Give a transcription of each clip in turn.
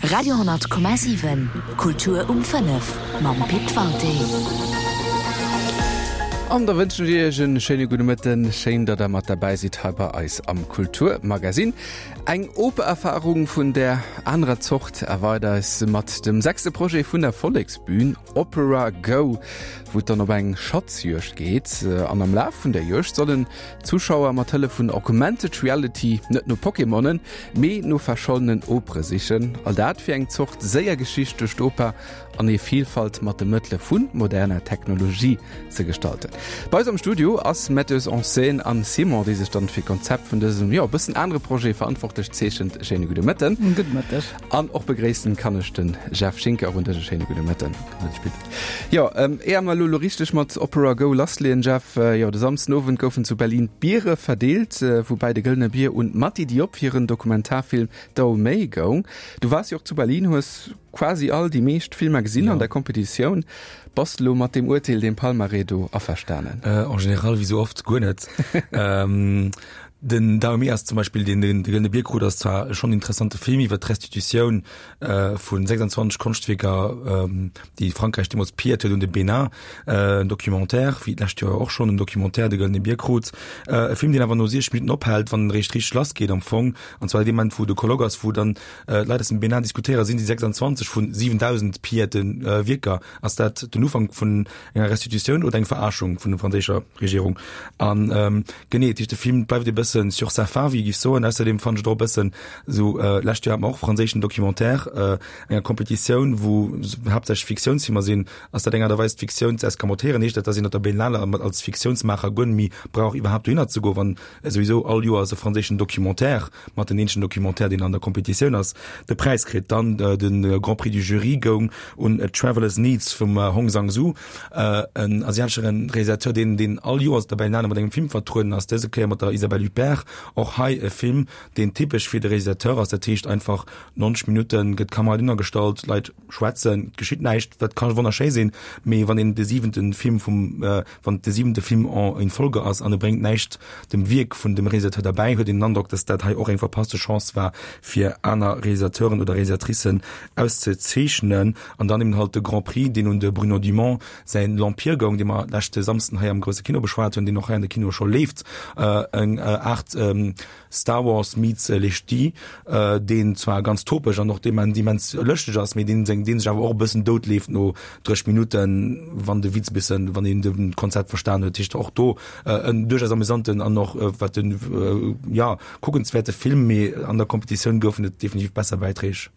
Radio,7 Kultur um 5 mam Pit Walté. An da wënschen ech Iech en schéine gudde Mëtten. Schéin, datt der mat derbäi sidd hei bei eis am Kulturmagasinn. Eng Opererfarung vun der anerer Zort erwaart eis mat dem sechste Projet vun der Volleksbün, Opera Go, wou et dann op eng Schatzjuegd geet. An am Laf vun der Juegd sollen Zuschauer mat Hëllef vun Augmented Reality net no Pokémonen, mee no verschollenen Opere sichen. All dat fir eng Zort séier Geschicht duerch d'Oper an hir Vilfalt mat de Mëttele vu moderner Technologie ze gestalten. Bei eis am Studio ass Metteuse en scène Anne Simon, déi sech dann fir d'Konzept vun dësem, jo, e bëssen anere Projet verantwortlech zeechent. Schéine gudde Mëtten. Gudde Mëtteg. An och begréissen kann ech de Jeff Schinker. Och un dech e schéine gudde Mëtten. Jo, éier mer elo elo richteg mat Opera Go lassleeën, Jeff, jo, de Samsden Owend goufen zu Berlin d'Biere verdeelt, woubäi de Gëllene Bier un d'Mati Diop hiren Dokumentarfilm Dahomey goung. Du waars jo och zu Berlin, hues quasi all déi meescht Filmer gesinn an der Kompetitioun. Bass de elo mat deem Urteel, deem Palmarès do averstanen? En général, wéi sou oft, guer net. Den Dahomey ass zum Beispill, deen de Gëllene Bier krut, ass zwar schonn en interessante Film iwwer d'Restitutioun vu 26 Konschtwierker, déi Frankräich deemools pilléiert huet un de Bénin. En Documentaire, wéi d'lescht Joer och schonn en Documentaire de Gëllene Bier krut. E Film, deen awer no 60 Minutten ophält, wann en eréischt richteg lassgeet am Fong. An zwar dee Moment, wou de Colloque ass, wou dann d'Leit aus dem Bénin diskutéieren, sinn déi 26 vu 7.000 pilléierte Wierker, ass dat den Ufank vun enger Restitutioun oder eng Verarschung vun der franséischer Regierung? An genee, dat heescht, de Film bleift e bëssen sur sa faim, wéi ee géif soen. Ausserdeem fannen ech et och e bëssen esou, lescht Joer hat mer och e franséischen Documentaire, enger Kompetitioun, wou haaptsächlech Fiktiounsfilmer sinn. Ass dat eng Aart a Weis, d'Fiktioun ze escamotéieren? Heescht dat, dass een op der Berlinale als Fiktiounsmaacher guer net méi brauch iwwerhaapt dohinner ze goen, wann souwisou all Joers e franséischen Documentaire mat den eenzegen Documentaire, deen an der Kompetitioun ass, de Präis kritt. Dann de Grand Prix du Jury goung un A Traveler's Needs vum Hong Sang-soo, en asiatesche Realisateur, deen deen all Joers op der Berlinale mat engem Film vertrueden ass, dëse Kéier mat der Isabelle Huppert. Och hei e Film, deen typesch fir de Realisateur ass, dat heescht einfach 90 Minutte gëtt d'Kamera dohinner gestallt, d'Leit schwätzen, et geschitt näischt, dat ka wonnerschéi sinn, mee wann een de siwente Film vum Wann et de siwente Film en in Folge ass an e bréngt näischt dem Wierk vun dem Realisateur derbäi, huet een den Androck, datt dat hei och eng verpasste Chance war, fir aner Realisateuren oder Realisatricen auszezeechnen. An dann eben halt de Grand Prix, deen un de Bruno Dumont säin L'Empire goung, dee mer leschte Samsden hei am grousse Kino beschwat hunn, deen och hei an de Kinoe scho leeft, eng Aart Star Wars meets Les Ch'tis, deen zwar ganz topeg an och immens lëschteg ass, mee deen seng, deen sech awer och e bëssen dout leeft no 30 Minutten, wann de Witz e bëssen, wann een de Konzept verstan huet. Heescht och do en duerchaus amüsanten an och wat den, jo, kuckenswäerte Film, mee an der Kompetitioun goufen et definitiv besser Bäiträg.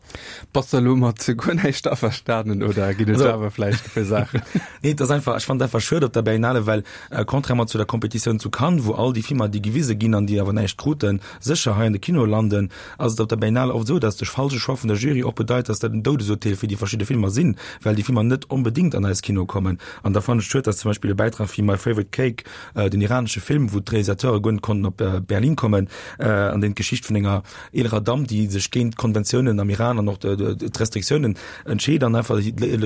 Bass de elo mat guer näischt averstanen oder ginn et awer vläicht e puer Saachen? Nee, et ass einfach, ech fannen et einfach schued op der Berlinale, well contrairement zu der Kompetitioun zu Cannes, wou all déi Filmer, déi gewise ginn an déi awer näischt kruten, sécher hei an de Kinoe landen, ass et op der Berlinale oft esou, dass de falsche Choix vun der Jury och bedeit, dass dat en Doudesurteel fir déi verschidde Filmer sinn, well déi Filmer net onbedéngt an eis Kinoe kommen. An da fannen ech et schued, dass zum Beispill e Bäitrag wéi My Favorite Cake, den iranesche Film, wou d'Realisateure guer net konnten op Berlin kommen, an deen d'Geschicht vun enger eelerer Damm, déi sech géint d'Konventiounen am Iran an och d'Restriktiounen entscheet an einfach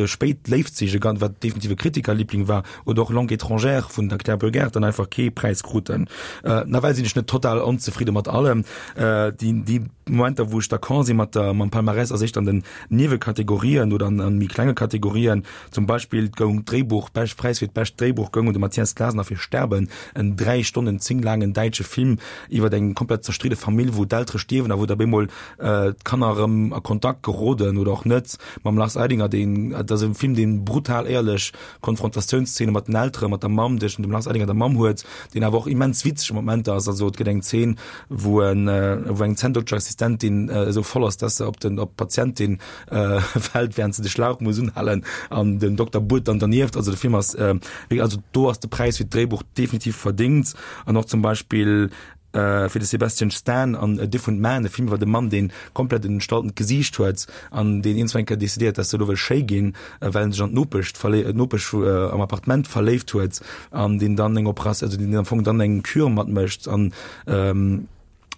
spéit léift sich, wat definitiv e Kritikerliebling war, oder och Langue étrangère vun der Claire Burgert dann einfach kee Präis kruten. Nawell sinn ech net total onzefridde mat allem. Déi Momenter, wou ech d'accord si mat der mam Palmarès, ass éischter an den Niewekategorien oder an méi klenge Kategorien. Zum Beispill goung d'Dréibuch, bescht Präis fir d'bescht Dréibuch goung un de Matthias Glasner fir Sterben, en 3 Stonnen 10 laangen däitsche Film iwwer eng komplett zerstridde Famill, wou d'Eltere stierwen a wou da bemol d'Kanner erëm a Kontakt geroden oder och net mam Lars Eidinger, deen, et ass e Film, deen brutal éierlech Konfrontatiounszene mat den Eltere, mat der Mamm, tëschent dem Lars Eidinger an der Mamm huet, deen awer och immens witzeg Momenter ass. Also et gëtt eng Zeen, wou en, wou eng Zänndokterassistentin esou voll ass, dass se op den, op d'Patientin fält, während se de Schlauch muss unhalen an den Dokter buert dann dernieft. Also de Film ass, also do ass de Präis fir d'Dréibuch definitiv verdéngt an och zum Beispill fir de Sebastian Stan an A Different Man, e Film iwwer e Mann, deen komplett en entstaltent Gesiicht huet an deen iergendwann eng Kéier decidéiert, dass e elo wëll schéi ginn, well en sech an d'Nopesch verléi-, d'Nopesch am Appartement verléift huet an deen dann eng Operatioun, also deen am Fong dann eng Kür matmécht an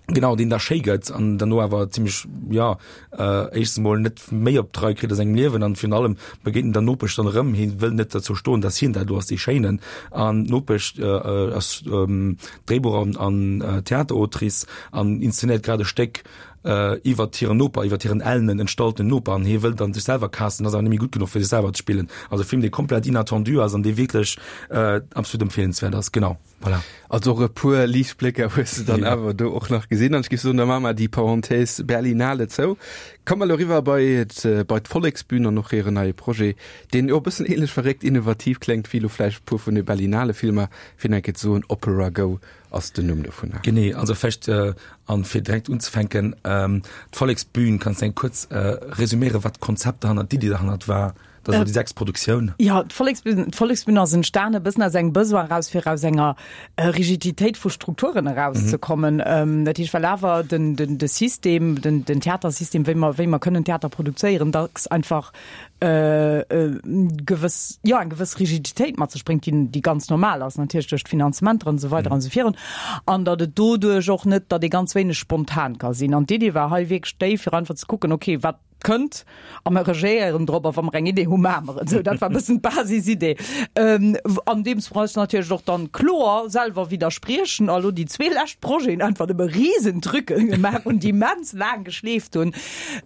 genau, deen da schéi gëtt an derno awer zimmlech, jo, éischtens emol net méi op d'Rei kritt a sengem Liewen an virun allem begéint en der Nopesch dann erëm. Hie wëll net derzou stoen, dass hien dat elo ass, dee Schéinen. An d'Nopesch ass Dréibuch an Theaterautrice an inszenéiert grad e Stéck. iwwert hiren Noper, iwwert hiren ellenen, entstallten Noper an hie wëll dann sech selwer casten, ass awer net méi gutt genuch fir sech selwer ze spillen. Also e Film dee komplett inattendu ass an dee wierklech absolut empfeelenswäert ass. Genau, voilà. Also och e puer Liichtblécker hues de dann awer do och nach gesinn. An ech géif soen, da maache mer déi Parenthèse Berlinale zou. Komme mer elo eriwwer bei bei d'Volleksbün an och hiren neie Projet, deen jo e bëssen ähnlech verréckt innovativ kléngt wéi elo vläicht e puer vun de Berlinale-Filmer, fir nach eng Kéier ze soen, Opera Go ass den Numm dovunner. Genee, also vläicht, an fir direkt unzefänken, d'Volleksbün, kanns de eng kuerz resüméieren, wat d'Konzept derhannert, d'Iddi derhannert war? Dat ass elo déi sechst Produktioun. Jo, d'Volleksbün, d'Volleksbün ass entstanen e bëssen aus engem Besoin eraus, fir aus enger Rigiditéit vu Strukturen erauszekommen. Dat heescht, well awer den, den, de System, den, den Theatersystem, wéi mer, wéi mer kënnen Theater produzéieren, dacks einfach gewëss, jo, eng gewëss Rigiditéit mat sech bréngt, déi, déi ganz normal ass, natierlech duerch d'Finanzementer an esou weider an esou virun, an datt et doduerch och net, datt ee ganz wéineg spontan ka sinn. An d'Idee war hei wierklech déi, fir einfach ze kucken, okay, wat kënnt a mer regéieren drop a wa mer eng Idee hu maache mer et. Esou, dat war e bëssen d'Basisidee. Andeems mer eis natierlech och dann kloer selwer widderspriechen a lo déi zwee lescht Projeten einfach nëmme Riesentrucken gemaach hunn, déi immens laang geschleeft hunn.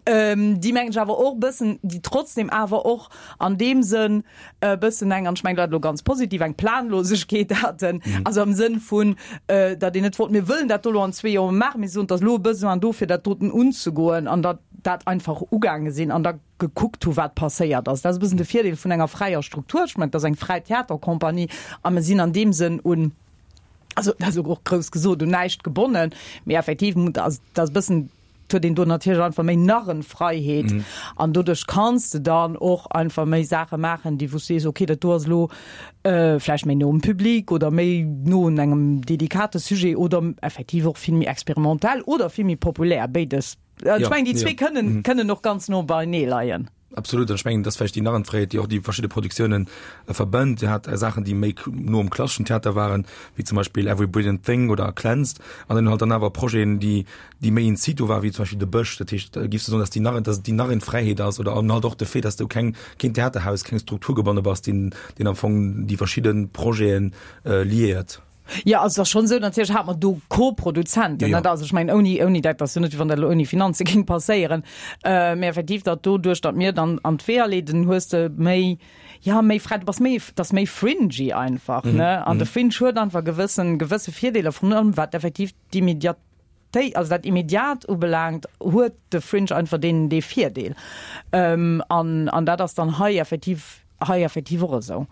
Déi mengen ech awer och e bëssen, déi trotzdem awer och an deem Sënn e bëssen eng, an ech mengen dat elo ganz positiv, eng Planlosegkeet haten, also am Sënn vun, datt een net wollt, mir wëllen dat do elo an zwee Joer maachen, mee soen, et ass elo e Besoin do fir dat doten unzegoen an datt dat einfach ugaange sinn an da gekuckt hu wat passéiert ass. Dat ass e bëssen de Virdeel vun enger fräier Struktur. Ech mengen, et ass eng fräi Theatercompagnie a mir sinn an deem Sënn un, also dat ass och grouss gesot, un näischt gebonnen, mee effektiv, also dat ass e bëssen, Et huet een do natierlech einfach méi Narrenfreiheet mm. an doduerch kanns de dann och einfach méi Saache maachen, déi wou s sees, okay, dat do ass elo äh, vläicht méi no um Public oder méi no un engem delikate Sujet oder effektiv och vill méi experimentell oder vill méi populär, béides. Äh, ech mengen, déi zwee kënnen, mm. kënnen och ganz no beinee leien. Absolut, an ech mengen, dass vläicht déi Narrenfreiheet, déi och déi verschidde Produktiounen verbënnt. Dir hat Saachen, déi méi no um klasseschen Theater waren, wéi zum Beispill Every Brilliant Thing oder Cleansed, an dann halt dann awer Projeten, déi, déi méi in situ waren, wéi zum Beispill De Bësch. Dat heescht, giffs du soen, dass déi Narren, dass et déi Narrenfreiheet ass oder an halt och de Fait, dass du keng, keen Theaterhaus, keng Struktur gebonne bass, deen, deen am Fong déi verschidde Projeten liéiert? Jo, also et ass schonn esou, natierlech hate mer do Co-Produzenten, net? Also ech mengen, ouni, ouni dat ass jo net, wéi wann dat elo ouni Finanze géing passéieren. Mä effektiv, datt doduerch, datt mir dann an d'Weeër leeden, hues de méi, jo, méi fräi, du bass méi, et ass méi fringy einfach, ne? An de Fringe huet einfach gewëssen, gewësse Virdeeler, vrun allem wat effektiv d'Immediatéit, also dat Immediat ubelaangt, huet de Fringe einfach deen, dee Virdeel. An, an dat ass dann hei effektiv, hei effektiv och esou.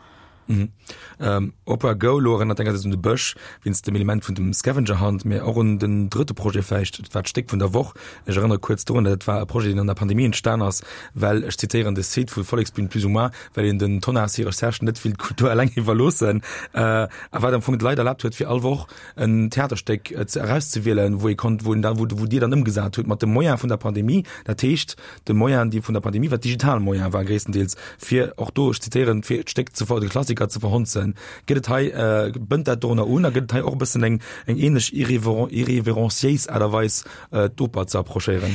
Mhm. Ähm, Opera Go lo erënnert engersäits un de Bësch wéinst dem Element vun dem Scavenger Hunt, mee och un den drëtte Projet vläicht, dat war d'Stéck vun der Woch. Ech erënnere kuerz dorun, dat war e Projet, deen an der Pandemie entstan ass, well, ech zitéieren de Site vu Volleksbühn plus ou moins, well een den Tonnas hire Recherchen net wéilt d'Kultur eleng iwwerloossen, äh, a wat am Fong d'Leit erlaabt huet, fir all Woch en Theaterstéck ze erauszewielen, wou ee konnt, wou een da, wou, wou Dir dann ëmgesat hutt mat de Moyen vun der Pandemie, dat heescht de Moyen, déi vun der Pandemie, wat digital Moyen war gréisstendeels, fir och do, ech zitéieren, fir d'Stéck ze ver, de Klassiker ze verhonzen. Gëtt et hei, bënnt dat dorunner un a gëtt et hei och e bëssen eng, eng ähnlech irrever, irreverenciéis Aart a Weis, d'Oper ze approchéieren?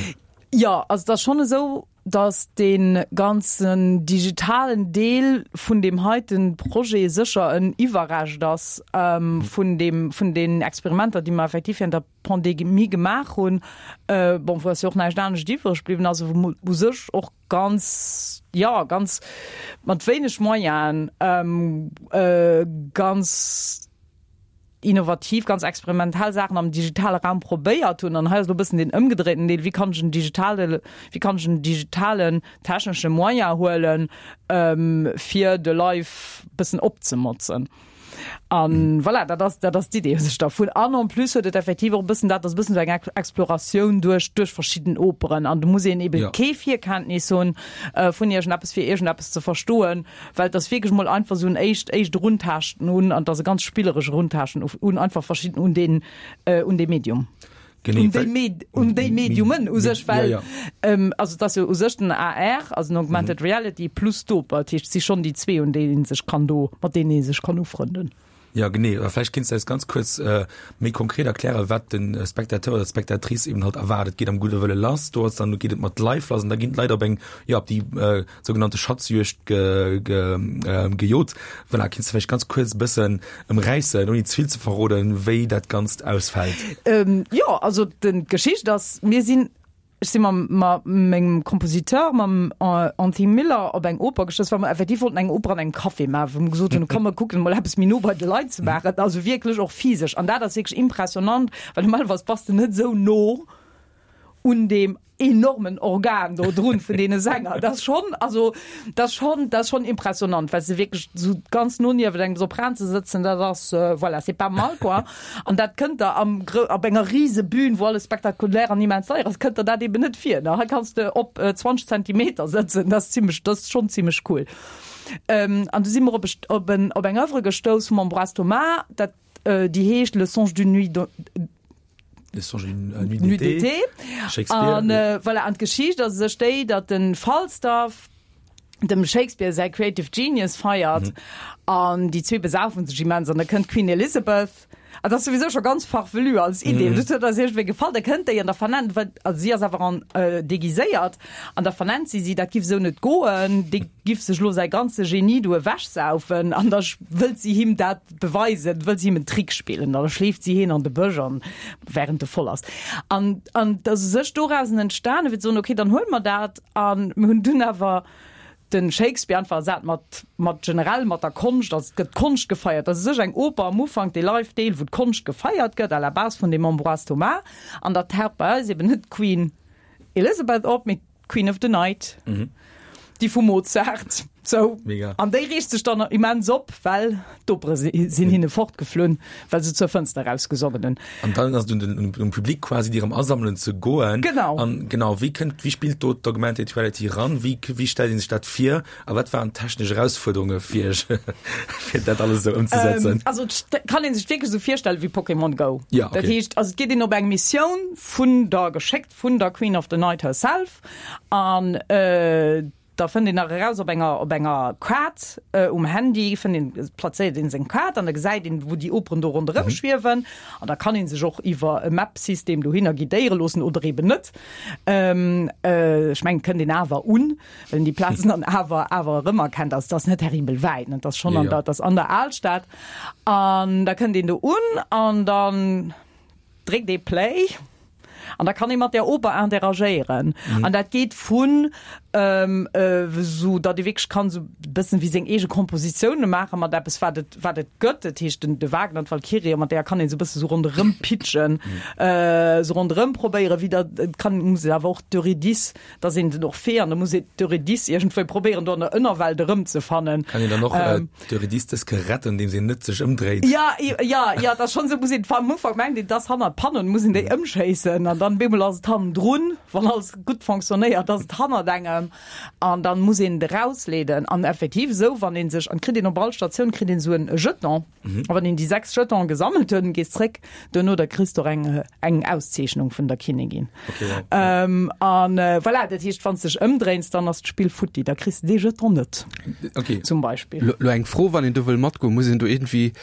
Jo, also et ass schonn esou, dass dee ganzen digitalen Deel vun deem heiten Projet sécher en Iwwerrescht ass vun deem, vun den Experimenter, déi mer effektiv während der Pandemie gemaach hunn. Bon, wou ass jo och näischt anescht iwwreg bliwwen, also wou mer u sech och ganz, jo, ganz mat wéineg Moyenen ganz, innovativ, ganz experimentell Saachen am digitale Raum probéiert hunn. An hei ass elo e bëssen deen ëmgedréiten Deel, Wéi kann ech en digitale, wéi kann ech en digitalen technesche Moyen huelen, fir de Live bëssen opzemotzen? A voilà, dat ass, dat ass d'Idee u sech dervun. An en plus huet et effektiv och e bëssen dat, ass e bëssen esou eng Exploratioun duerch, duerch verschidden Operen. An do muss een ebe kee Virkenntnis hunn vun iergendeppes, fir iergendeppes ze verstoen. Well et ass wierklech mol einfach esou en éischt, éischt Eruntaaschten un, an et ass e ganz spilleresch Eruntaaschten un einfach verschidden, un deen, un dee Medium. Genee, Un déi Med, un déi Mediumen u sech, well, ja, ja. also et ass jo u sech den AR, also den Augmented Reality, plus d'Oper. Dat heescht, et si schonn déi zwee, un déi ee sech kann do, mat deenen ee sech kann ufrënden. Ja, genee. Oder vläicht kéints de eis ganz kuerz méi konkret erklären, wat de Spectateur oder d'Spectatrice eben halt erwaart. Et geet am gudde Wëlle lass, do ass dann, geet et mat Live lass an da ginn d'Leit op eng, jo, op déi sougenannte Schatzjuegd ge, ge, gejot. Voilà, kéints de vläicht ganz kuerz e bëssen ëmräissen, ouni ze vill ze verroden, wéi dat Ganzt ausfält? Jo, also d'Geschicht ass, mir sinn. Ech si mam ma mengem Kompositeur, mam Anthony Miller op eng Oper gestouss, well mer effektiv wollten eng Oper an engem Café maachen, wou mer gesot hunn, komm mer kucken emol eppes méi no bei de Leit ze maachen, also wierklech och physesch. An dat ass wierklech impressionant, well normalerweis bass de net esou no un deem enormen Organ do drun vun deene Sänger. Dat ass schonn, also dat ass schonn, dat ass schonn impressionant, well se wierklech esou ganz no niewent engem Sopran ze sëtzen, dat ass, voilà, c'est pas mal quoi. An dat kënnt der am Gro op enger rise Bühn, wou alles spektakulär an immens deier ass, kënnt der dat eben net vir. Ne? Hei kanns de op 20 Zentimeter sëtzen, dat ass zimmlech, dat ass schonn zimmlech cool. Ähm, an du si mer op e, op en, op eng Oeuvre gestouss vum Ambroise Thomas, dat, déi heescht Le songe d'une nuit de, Le songe d'une nuit d'été. Nuit d'été. Shakespeare. An, voilà, an d'Geschicht ass u sech déi, datt de Falstaff, dem Shakespeare säi Creative Genius feiert an déi zwee besaufen sech immens an da kënnt d'Queen Elizabeth, an dat ass souwisou scho ganz farfelu als Idee, dat huet eis iergendwéi gefall, da kënnt déi an da vernennt, well also si ass awer an deguiséiert an da vernennt si si, dat giff esou net goen, dee giff sech elo säi ganze Genie do ewechsaufen an da wëllt si him dat beweisen, wëllt si him en Trick spillen an da schleeft si hien an de Bësch an während e voll ass an an et ass u sech dorausen entstanen, fir ze soen, okay, dann huele mer dat An mir hunn dunn awer de Shakespeare einfach ersat mat, mat generell mat der Konscht. Also et gëtt d'Konscht gefeiert. Dat ass u sech eng Oper am Ufank, dee Live-Deel, wou d'Konscht gefeiert gëtt, à la base vun dem Ambroise Thomas. An da taucht bei eis eben net d'Queen Elizabeth op, mee d'Queen of the Night, déi vum Mozart. Sou. Mega. An déi reegt sech dann immens op, well d'Opere sinn hinne fortgeflunn, well se zur Fënster erausgesongen hunn. An dann ass et un den, um Public quasi, déi erëm asammelen ze goen. Genau. An genau, wéi kënnt, wéi spillt do d'Augmented Reality eran? Wéi, wéi stellt ee sech dat vir? A wat waren d'technesch Erausfuerderunge fir iech, fir dat alles esou ëmzesetzen? Also et kann ee sech wierklech esou virstelle wéi Pokémon Go. Ja, okay. Dat heescht, also et geet een op eng Missioun vun der, geschéckt vun der Queen of the Night herself an, Da fënnt een nach eraus op enger op enger Kaart um Handy fënnt een, plazéiert een seng Kaart an da gesäit een wou déi Operen do ronderëm schwiewen an da kann een sech och iwwer e Map-System dohinner guidéiere loossen oder eben net. Ech mengen et kënnt een awer un, well een déi Plazen dann awer awer erëmerkennt. Also et ass net terribel wäit, ne, et ass schonn an der, et ass an der Alstad an da kënnt een do un an dann dréckt ee Play an da kann ee mat där Oper interagéieren. An dat geet vun esou, datt ee wierklech kann esou e bëssen wéi seng eege Kompositioune maache mat eppes, wat et, wat et gëtt. Dat heescht den, de Wagner, d'Valkyrie, mat där kann een esou e bësse sou ronderëm pitchen, esou ronderëm probéieren, wéi dat, et kann, muss een awer och d'Eurydice, dass een den Orphée an da muss een d'Eurydice iergendwéi probéieren do an der Ënnerwelt erëmzefannen. Kann een dann och d'Eurydice dës Kéier retten, andeems een net sech ëmdréit? Ja, ja, ja, dat ass schonn esou, muss een am Ufank mengt een, et ass hannert d'Panno, dann muss een déi ëmschéissen an dann bemol ass et hannendrun, wann alles gutt fonctionnéiert, ass et hannert engem an dann muss een et erausleeden an effektiv esou, wann een sech, an kritt een op all Statioun kritt een esou en Jeton. A wann een déi 6 Jetonen gesammelt huet, gees zréck duerno, da kriss de och eng eng Auszeechnung vun der Kinnigin. Okay, wow. Ähm, an äh, voilà, dat heescht, wann s dech ëmdréins, dann ass d'Spill futti, da kriss de dee Jeton net. Okay. Zum Beispill. Lo, lo eng Fro, wann een do wëll matgoen, muss een do iergendwéi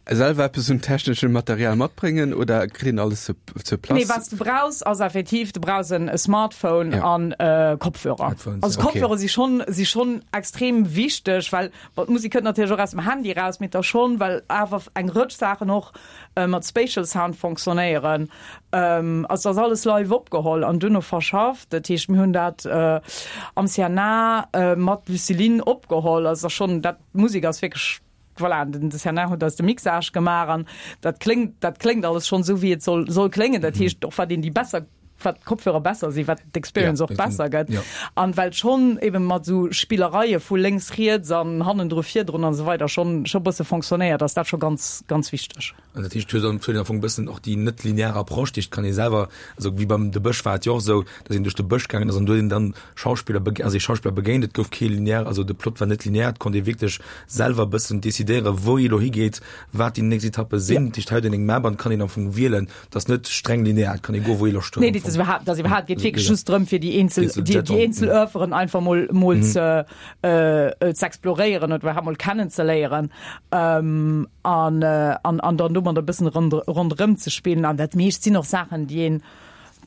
selwer eppes un techneschem Material matbréngen oder kritt een alles sur, sur place? Nee, wat s de brauchs, ass effektiv, du brauchs en Smartphone Ja. an äh, Kopfhörer. Headphones, Also ja. Okay. Kopfhörer si schonn, si schonn extrem wichteg, well Bon, d'Musek kënnt natierlech och aus dem Handy eraus, mee da schonn, well awer eng Rëtsch Saachen och mat Spatial Sound fonctionnéieren. Also et ass alles live opgeholl an duerno verschafft. Dat heescht, mir hunn dat am CNA mat Lucilin opgeholl. Also et ass schonn, dat, d'Musek ass wierklech, voilà, den CNA huet eis de Mixage gemaach an dat kléngt, dat kléngt alles schonn esou, wéi et soll, soll kléngen. Dat heescht, och wat een déi besser wat d'Kopfhörer besser sinn, wat d'Experience Ja, och besser gëtt. ja. An well schonn eben mat esou Spillereie vu lénks, riets an hannendru, virdrun an esou weider schonn scho bësse fonctionnéiert, ass dat scho ganz, ganz wichteg. An dat heescht, et huet an huet am Fong e bëssen och déi net linear Approche, dat heescht, et kann ee selwer, also wéi beim De Bësch war et jo och esou, datt een duerch de Bësch gaangen ass an do huet een dann Schauspiller bege also ee Schauspiller begéint, et gouf kee linear, also de Plot war net linear, et konnt ee wierklech selwer e bëssen decidéieren, wou ee elo higeet, wat déi nächst Etappe sinn. Dat heescht, hei huet een eng Map an et kann een am Fong wielen, Et ass net streng linear, et kann ee goen, wou ee Loscht huet. Nee, dat ass iwwerhaapt, dat ass iwwerhaapt, geet wierklech just drëm, fir déi eenzel, Eenzel déi, déi Jetons. eenzel Oeuvren einfach mol, mol ze, äh, ze exploréieren oder iwwerhaapt mol kennenzeléieren, ähm, an, an, an dann domadder e bëssen rond, ronderëm ze spillen. An dat meescht sinn och Saachen, déi een,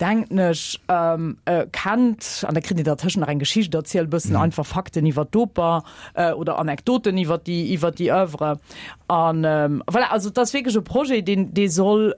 denken ech, ähm, kennt. An da kritt een dertëschent nach eng Geschicht erzielt, e bëssen einfach Fakten iwwer d'Oper, oder Anekdoten iwwer déi, iwwer déi Oeuvre. An, voilà, also et ass wierklech e Projet, deen, dee soll,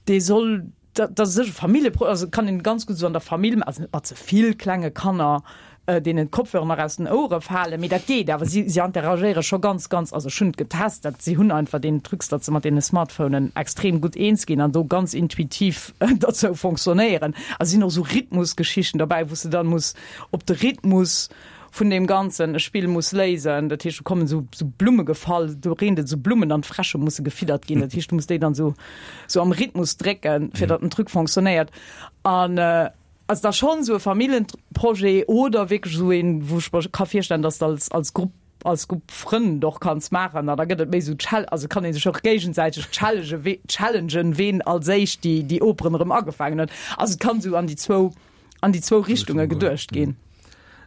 dee soll. Dat ass sécher e Familljeprojet, also kann een ganz gutt esou an der Famill, also net mat ze vill klenge Kanner, deenen d'Kopfhörer nach aus den Ouere falen, mee dat geet awer. Si, si interagéiere scho ganz, ganz, also ech hunn et getest, dat si hunn einfach deen Trucs, datt se mat deene Smartphonen extrem gutt eens ginn an do ganz intuitiv derzou fonctionnéieren. A sinn och esou Rhythmusgeschichten derbäi, wou s de dann muss op de Rhythmus vun deem Ganzen e Spill muss léisen. Dat heescht, do kommen esou, esou Blumme gefall, do reent et esou Blummen an d'Fräsche musse gefiddert ginn. Dat heescht, du muss déi dann esou, esou am Rhythmus drécken, fir datt den Truc fonctionnéiert. An also da schonn esou e Familljenprojet oder wierklech esou een, wou ech mer ka virstellen, datt s de als, als Grupp, als Grupp Frënn och kanns maachen. An da gëtt et méi esou Chal-, also kann ee sech och géigesäiteg challenge, challengen, ween als éischt déi, déi Operen erëm agefaangen huet. Also et kann esou an déi zwou an déi zwou Richtunge geduecht ginn.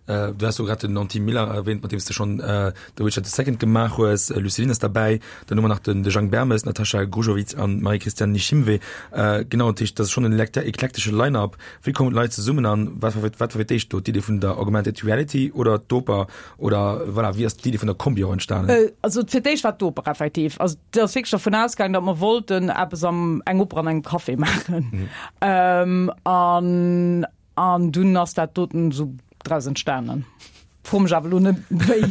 Äh, du hast so grad den Anti Miller erwähnt, mat deem du schon äh, The Witcher the Second gemaach hues. Äh, Luceline ass dabei. Dann hu mer nach den de Jang Bermes, Natascha Grujovic an Marie-Christiane Nishimwe. Äh, genau, dat heescht, dat ass schon en eklektesche Line-up. Wéi kommen d'Leit zesummen an wat war wat war fir d'éischt do? D'Idee vun der Augmented Reality oder d'Oper oder voilà, wéi ass d'Idee vun der Kombi och entstanen? Äh, also fir d'éischt war d'Oper effektiv. Also et ass wierklech dervun ausgaangen, datt mer wollten eppes am eng Oper an engem Café maachen. Mhm. Ähm, an an dunn ass dat doten esou draus entstanen. Fro mech awer elo net wéi.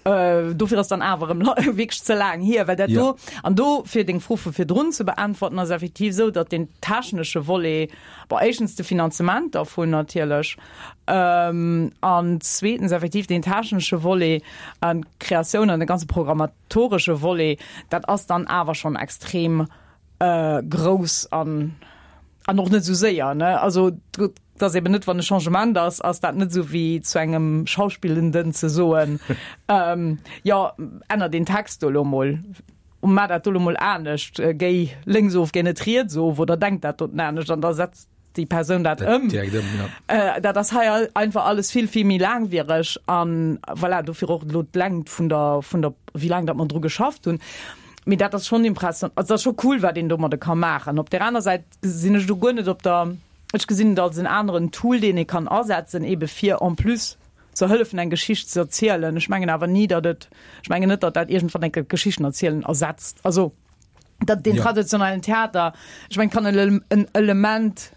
äh, dofir ass dann awer erëm wierklech ze laang hier, well dat do ja. an do fir deng Fro vu virdrun ze beäntwerten ass effektiv esou, datt den technesche Volet, bon éischtens de Finanzement dervun natierlech, ähm, an zweetens effektiv den technesche Volet an d'Kreatioun an de ganze programmatoresche Volet, dat ass dann awer schonn extrem äh, grouss an an och net esou séier ne also et ass eben net wann e Changement ass ass dat net esou wéi zu engem Schauspillenden ze soen ähm, jo änner deen Text do elo mol maach dat do elo mol anescht äh, géi lénks of géi net riets of oder denk dat doten anescht an da setzt déi Persoun dat ëm. Direkt ëm, ja. Äh, dat ass hei einfach alles vill vill méi laangwiereg an voilà, dofir och elo d'Längt vun der vun der wéi laang dat mer dru geschafft hunn. Mee dat ass schonn impression also dat ass scho cool wat een domadde ka maachen. Op där aner Säit sinn ech do guer net op der ech gesinn et als en aneren Tool deen ee kann asetzen ebe fir en plus ze hëllefen eng Geschicht ze erzielen. Ech mengen awer ni datt et ech mengen net datt dat iergendwann eng Kéier d'Geschichten erzielen ersetzt. Also dat den ja. traditionellen Theater ech mein kann en Element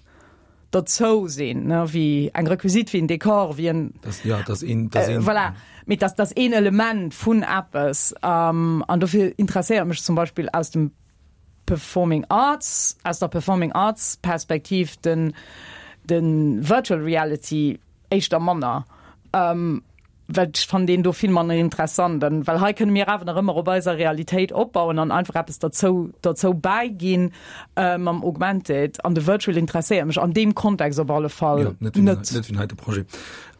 dozou sinn ne wie eng Requisit wie en Dekor wie en das, ja, das een, das äh, voilà. mit das das een Element vun Appes ähm, an dofir interesséiert mech zum Beispiel aus dem Performing Arts aus der Performing Arts Perspektiv den den Virtual Reality éischter manner. Ähm, well ech fannen deen do vill manner interessant an well hei kënne mir awer nach ëmmer op eiser Realitéit opbauen an einfach eppes derzou derzou bäiginn äh, mam Augmented an de Virtual interesséiert mech an deem Kontext op alle Fall ja, net net net wéi heite Projet.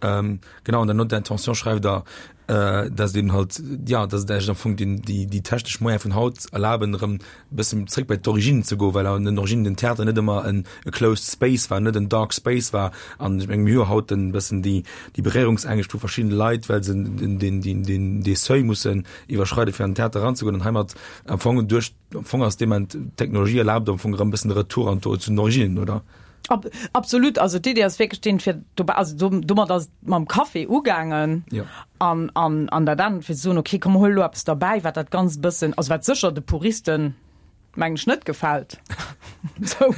Ähm, genau an der Note d'intention schreift der äh, dass eben halt ja dass et eigentlich am Fong den déi déi technesch Moyen vun haut erlaben erëm bëssen zréck bei d'Origine ze goen, well an den Originen den Theater net ëmmer en e closed space war, net en dark space war. An ech menge mir hu jo haut en bëssen déi déi Beréierungsängscht vu verschiddene Leit, well se den den den den dee Seuil mussen iwwerschreiden, fir an den Theater eranzegoen. An heimat am Fong duerch am Fong ass dee Moment d'Technologie erlaabt am Fong erëm e bëssen de Retour an d'O zu den Originen, oder? Ab, absolut, also d'Idee ass wierklech deen, fir dobäi, also do, domat ass et mam Café ugaangen Jo. an, an, an dat anert, fir ze soen, okay, komm, huel elo eppes derbäi, wat dat Ganzt e bëssen, also wat sécher de Puristen, mengen ech, net gefält. Sou,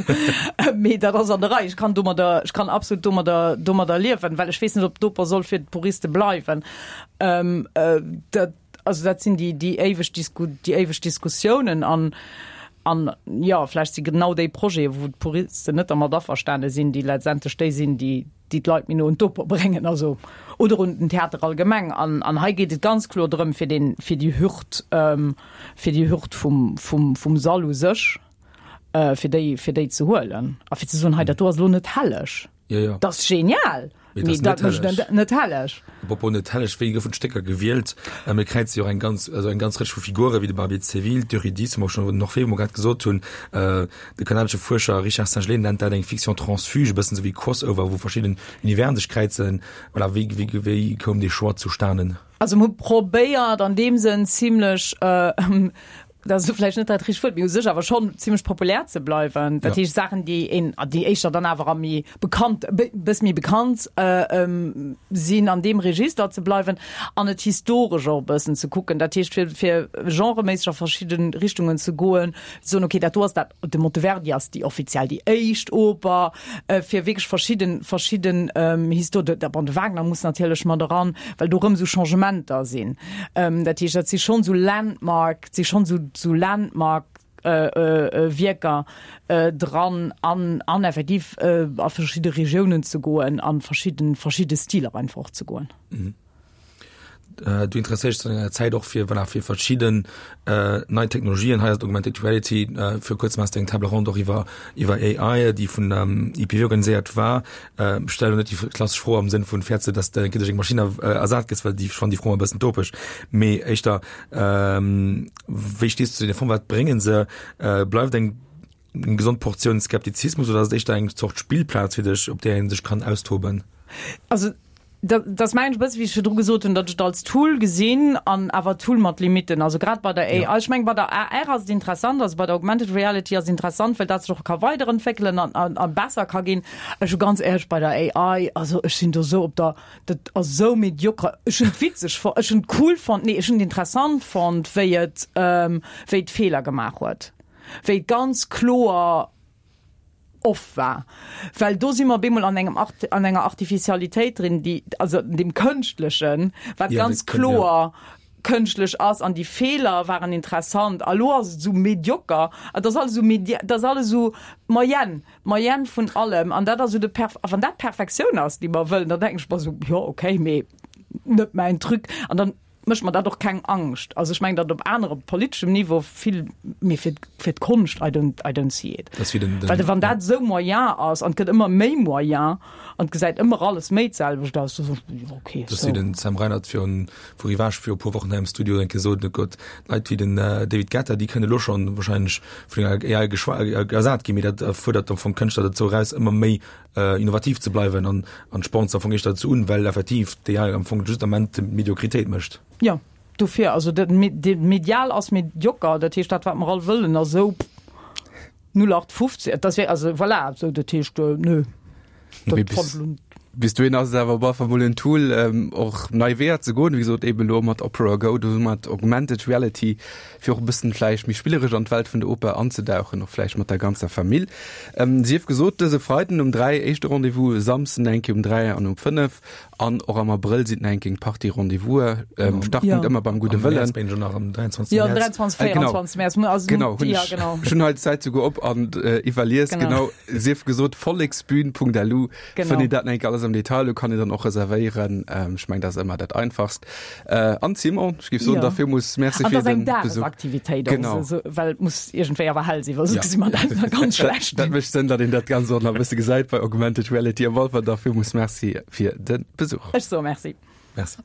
mee dat ass an der Rei. Ech kann domadder, ech kann absolut domadder, domadder liewen, well ech weess net, ob d'Oper soll fir d'Puriste bleiwen. Ähm, dat, Also dat sinn déi, déi éiweg Disku, déi éiweg Diskussiounen an, an jo, vläicht si genau déi Projete, wou d'Puristen net dermat averstane sinn, déi letztendlech déi sinn, déi, déi d'Leit méi no un d'Oper bréngen, also oder un den Theater allgemeng. An, an hei geet et ganz kloer drëm, fir deen, fir déi Hürd, fir déi Hürd vum, vum, vum Sall u sech, fir déi, fir déi ze huelen a fir ze soen, hei dat do ass elo net helleg. Ja, ja. Dat ass genial! Mee dat mécht net net helleg. Apropos net helleg, wéi goufen d'Stécker gewielt? Äh, mir kräize jo och eng ganz, also eng ganz Rëtsch vu Figure wéi de Barbier de Séville, d'Eurydice, wou mer schon den Orphée, wou mer grad gesot hunn. Äh, de kanadesche Fuerscher Richard Singelée nennt dat eng Fiction transfuge, e bëssen esou wéi Crossover, wou verschidden Universen sech kräizen. Voilà, wéi, wéi, wéi koum dee Choix zustanen? Also mir hu probéiert an deem Sënn zimlech, äh, Dat ass vläicht net dat richtegt Wuert, mee u sech awer schonn zimmlech populär ze bleiwen. Dat heescht Saachen, déi een, déi éischter dann awer a méi bekannt, e bësse méi bekannt sinn, an deem Register ze bleiwen an et historesch och e bëssen ze kucken. Dat heescht fir, fir genreméisseg a verschidde Richtungen ze goen, ze soen, okay, dat do ass dat, de Monteverdi ass déi offiziell déi éischt Oper, fir wierklech verschidden, verschidden Histo-, bon, de Wagner muss natierlech mat eran, well do erëm esou Changementer sinn. Dat heescht, dat si schonn esou Landmark, si schonn esou, esou Landmark Wierker dran an, an effektiv a verschidde Regiounen ze goen, an verschidden, verschidde Stiler einfach och ze goen. Du interesséiers dech an denger Zäit och fir, voilà, fir verschidden nei Technologien. Hei ass d'Augmented Reality. Viru kuerzem has de eng Table ronde och iwwer, iwwer AI, déi vun IPW organiséiert war. Ech stelle lo net déi klassesch Fro am Sënn vun, fäerts de, dass de duerch eng Maschinn ersat gëss, well déi, ech fannen déi Fro ëmmer e bëssen topeg. Mee éischter, wéi stees du zu deene Fongen? Wat bréngen se? Bleift eng gesond Portioun Skeptizismus oder ass et éischter eng Zort Spillplaz fir dech, op där ee sech kann austoben? Also dat ass mengen ech e bësse wéi ech virdru gesot hunn, datt ech et als Tool gesinn an awer Tool mat Limitten. Also grad bei der AI, ech mengen bei der AR ass et interessant, also bei der Augmented Reality ass et interessant, well dat sech och ka weiderentwéckelen an a besser ka ginn. Ech hu ganz éierlech bei der AI, also ech sinn do esou op der, dat ass esou mediocre. Ech hunn et witzeg fonnt, ech hunn et cool fonnt, nee ech hunn et interessant fonnt, wéi et wéi et Feeler gemaach huet, wéi et ganz kloer off war, well do si mer op eemol an engem Art, an enger Artificialitéit drin, déi, also dem Kënschtlechen, wat ja, ganz kloer ja. kënschtlech ass an déi Feeler waren interessant. A lo ass et esou medioker, et ass alles esou medi, et ass alles esou d'Moyenne, d'Moyenne vun allem an dat ass esou de Perf, a wann dat d'Perfektioun ass, déi mer wëllen, da denken ech mer esou, jo okay, mee net mäin Truc. An dann mécht mer dat och keng Angscht. Also ech mengen, datt op anerem politeschem Niveau vill, mee fir, fir d'Konscht, I don't, I don't see it. Das wie den, den, Well wann dat esou moyen ass an et gëtt ëmmer méi moyen an et gesäit ëmmer alles méi d'selwecht aus, da soen ech, jo okay, Das so. wie den Sam Reinard virun, vu Rivage viru puer Wochen hei am Studio enke gesot huet, Gott, Leit wéi den David Guetta, déi kënne lo schonn wahrscheinlech vun enger AI geschwa ersat ginn, mee dat fuerdert am Fong Kënschtler dozou eraus, ëmmer méi innovativ ze bleiwen an an spornt se am Fong éischter dozou un, well effektiv d'AI am Fong just am Ament Mediokritéit mécht. Jo, dofir, also dat medial ass medioker, dat heescht dat wat mer all wëllen ass esou 0815, et ass wierklech, also voilà, esou dat heescht nö. Dat fand ech. Bis dohin ass et awer op alle Fall mol en Tool, och nei Weeër ze goen, wéi gesot eben elo mat Opera Go, do mat Augmented Reality, fir och e bëssen vläicht méi spilleresch an d'Welt vun der Oper anzedauchen, och vläicht mat der ganzer Famill. Sief gesot, dëse Freiden um 3 éischte Rendez-vous, e Samsden eng Kéier um 3 an um 5 an och am Abrëll sinn eng Kéier eng Partie Rendez-vous'e. Startpunkt ëmmer beim Gudde Wëllen. Am Mäerz binn ech nach am 23. Jo, 23, 24 Mäerz. Genau, hunn ech, ech hunn hei d'Zäit souguer op an iwwerlies. Genau, sief gesot, volleksbühn.lu fënnt een dat nach eng Kéier alles am Detail. Do kann een dann och reservéieren. Ech mengen, dat ass ëmmer dat Einfachst. Äh, an Simon, ech géif soen, ja. da villmools Merci fir den Besuch. Aktivitéit genau. Also, well et muss iergendwéi awer hell sinn, well soss gesi mer dat nach ganz schlecht. Dat mécht Sënn, datt een dat Ganzt och nach e bësse gesäit bei Augmented Reality. Op alle Fall da villmools Merci fir de Besuch. Ech soe Merci. Merci.